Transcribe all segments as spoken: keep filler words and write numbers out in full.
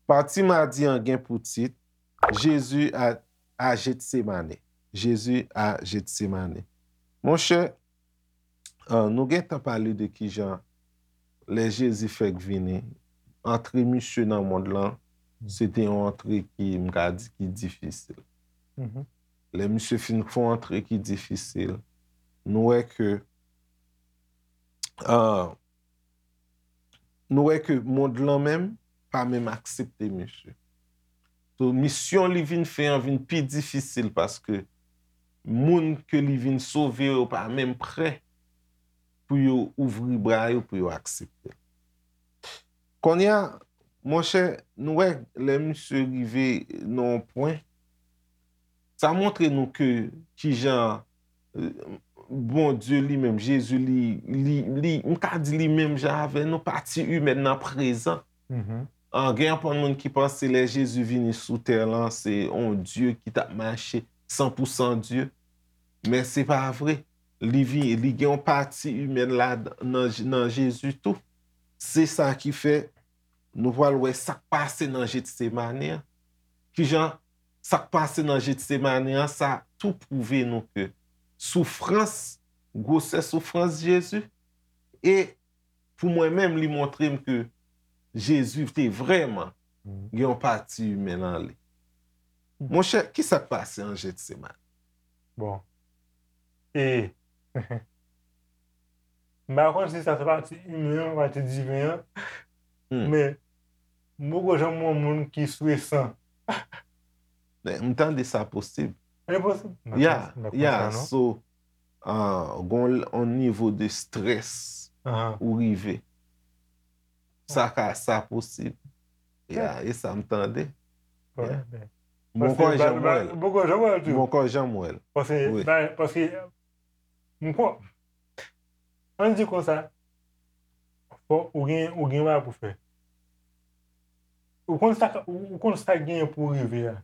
Pati madi an gen pou tit Jezi a, a Jetsemane. Jezi a Jetsemane. Monchè, ah, nou gentan pale de kijan lè Jezi fèk vini, antre misye nan mond lan, se te yon antre ki, m ka di, ki difisil. Lè misye fin fè yon antre ki difisil, nou wè ke, ah, nou wè ke mond lan menm pa menm aksepte misye. So, misyon li vin fè an vin pi difisil paske moun ke li vin sove yo pa menm prè pou yo ouvri bra yo pou yo aksepte l. Kounye a, monchè, nou wè lè misye rive nan yon pwen, sa montre nou ke kijan, euh, Bondye li menm, Jezi li, li, li, m ka di li menm jan avè nou, pati imèn nan prezan. An, gen anpil moun ki panse lè Jezi vini sou tè lan, se yon Dye ki t ap mache san pou san Dye. Men se pa vre. Li vi-, li gen yon pati imèn la nan, nan Jezi tou. Se sa ki fè nou pral wè sa k pase nan Jetsemane an. Kijan sa k pase nan Jetsemane an, sa tou pwouve nou ke soufrans, gwosè soufrans Jezi, e pou mwen menm, li montre m ke Jezi te vrèman gen yon pati imen nan li. Monchè, ki sa k pase an Jetsemane? Bon. E, m pa konn si sa se pati imen an, pati diven an, men m poko janm wè yon moun ki swe san. Men, m tande sa posib. E posib. M pa konn, m pa konn sa, non. So, ah, gon l-, on nivo de strès ou rive. Sa ka, sa posib. Ya, e sa m tande. Bon, men, m poko janm wè l. M poko janm wè l tou. M poko janm wè l. Paske, paske, m kwè, ann di konsa, fò ou gen, ou gen bagay pou fè. Ou konn sa, ou, ou konn sa k genyen pou rive a.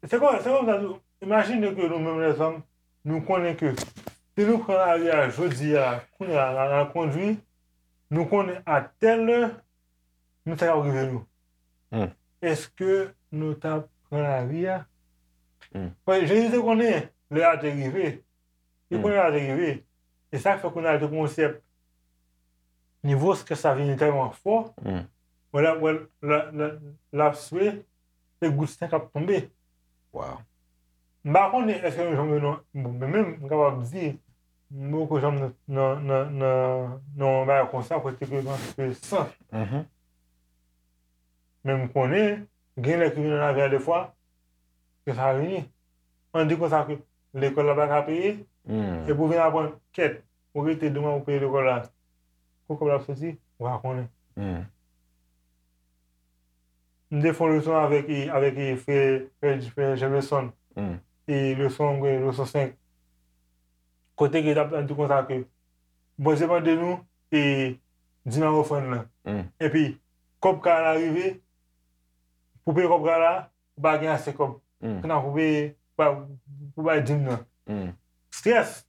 Se kon, se konsa tou, imajine ke nou menm lèzòm, nou konnen ke si nou pran lari a jodi a, kounye a, n a, n a kondui, nou konnen a tèl lè, nou sa k ap rive nou. Èske nou t ap pran lari a? Paske Jezi te konnen lè a te rive. Li konnen lè a te rive. E sa k fè kounye a l te gon sèp nivo strès la vini tèlman fò, wè l ap, wè l, l ap, l ap, l ap swe, se gout sen k ap tonbe. Wow. M pa konnen èske nou janm wè non, bon, men menm, m kapab di, m poko janm nan, nan, nan, nan, nan yon bagay konsa, kote ke m ap swe san. Men m konnen, gen lè ki vin nan lavi a defwa, ke sa vini. Ann di konsa ke lekòl la pa ka peye, epi w vin aprann, kèt, ou rete demen pou peye lekòl la. Kot kòb la ap soti, ou pa konnen. M te fè yon leson avèk, avèk frè, frè, frè Jameson, e leson, leson senk. Kote ke l ap di konsa ke Bondye mande nou, e, dim ak ofrann nan. Epi, kòb kay la rive, pou peye kòb kay la, ou pa gen ase kòb. Kounye a pou peye, pou, pou bay dim nan. Strès.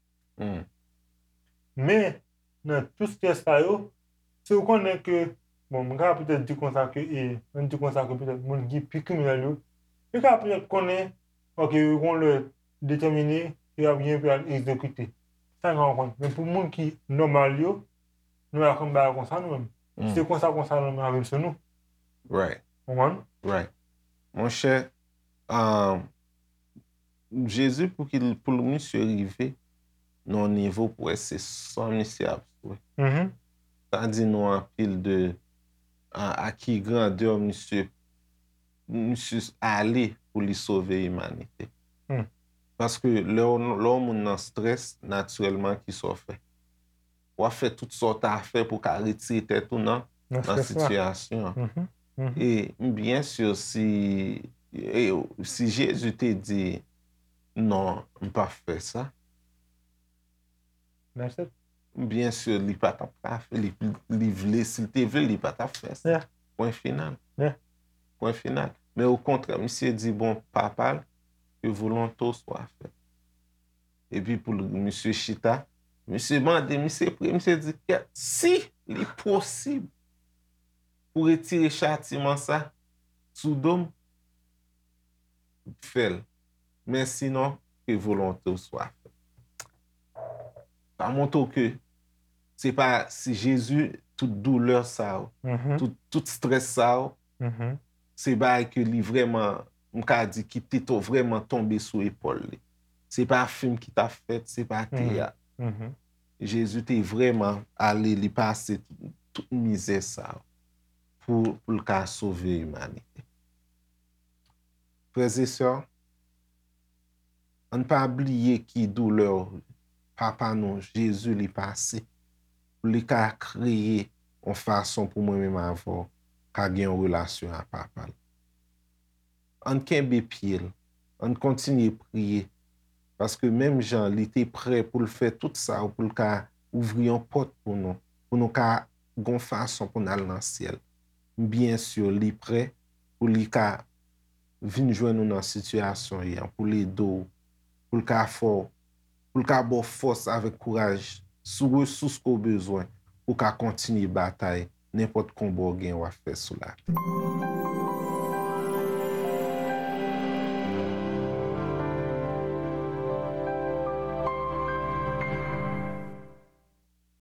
Men, nan tout strès sa yo, si w konnen ke, bon, m ka petèt di konsa ke, e, ann di konsa ke petèt moun ki pi kriminèl yo, yo ka petèt konnen, ok, yo gon lè detèmine, yo ap gen pou y al egzekite. Sa yo ka konprann. Men pou moun ki nòmal yo, nou pa konn bagay konsa nou menm. Se konsa, konsa nou menm avè l sou nou. Right. Konprann? Right. Monchè, um, Jezi, pou ki l, pou l misye rive nan yon nivo pou wè se san misye ap swe. Sa di nou anpil de a, a ki grandè misye, misye ale pou li sove imanite. Paske lè w, lè yon moun nan strès, natirèlman, ki sa w fè? W ap fè tout sa w ta fè pou w ka retire tèt ou nan, nan sitiyasyon an. E m byen si, e, si Jezi te di, "Non, m p ap fè sa." M byen si li pa t ap ka fè, li, li vle, si l te vle, li pa t ap fè sa. Pwen final. Pwen final. Men okontrè, misye di, bon, Papa l, que volonté soit faite. Epi pou l, misye chita, misye mande, misye priye, misye di, kèt, si li posib pou retire chatiman sa sou do m, fè l. Men sinon, ke volonte w swa fèt. Sa montre w ke se pa si Jezi, tout doulè sa yo, tout, tout strès sa yo, se bagay ke li vrèman, m ka di ki te to vrèman tonbe sou epòl li. Se pa fim ki t ap fèt, se pa teyat. Jezi te vrèman ale, li pase tout, tout mizè sa yo pou, pou l ka sove imanite. Frè e sè, ann pa bliye ki doulè Papa nou, Jezi, li pase, pou li ka kreye yon fason pou mwen menm avè w ka gen yon relasyon ak Papa l. Ann kenbe pye l, ann kontinye priye, paske menm jan li te prè pou l fè tout sa, pou l ka ouvri yon pòt pou nou, pou nou ka gon fason pou n al nan syèl. M byen si li prè pou li ka vin jwenn ou nan sitiyasyon w ye a, pou l ede w, pou l ka fè w, pou l ka ba w fòs avèk kouraj sou resous ke w bezwen pou w ka kontinye batay nenpòt konba w gen w ap fè sou latè.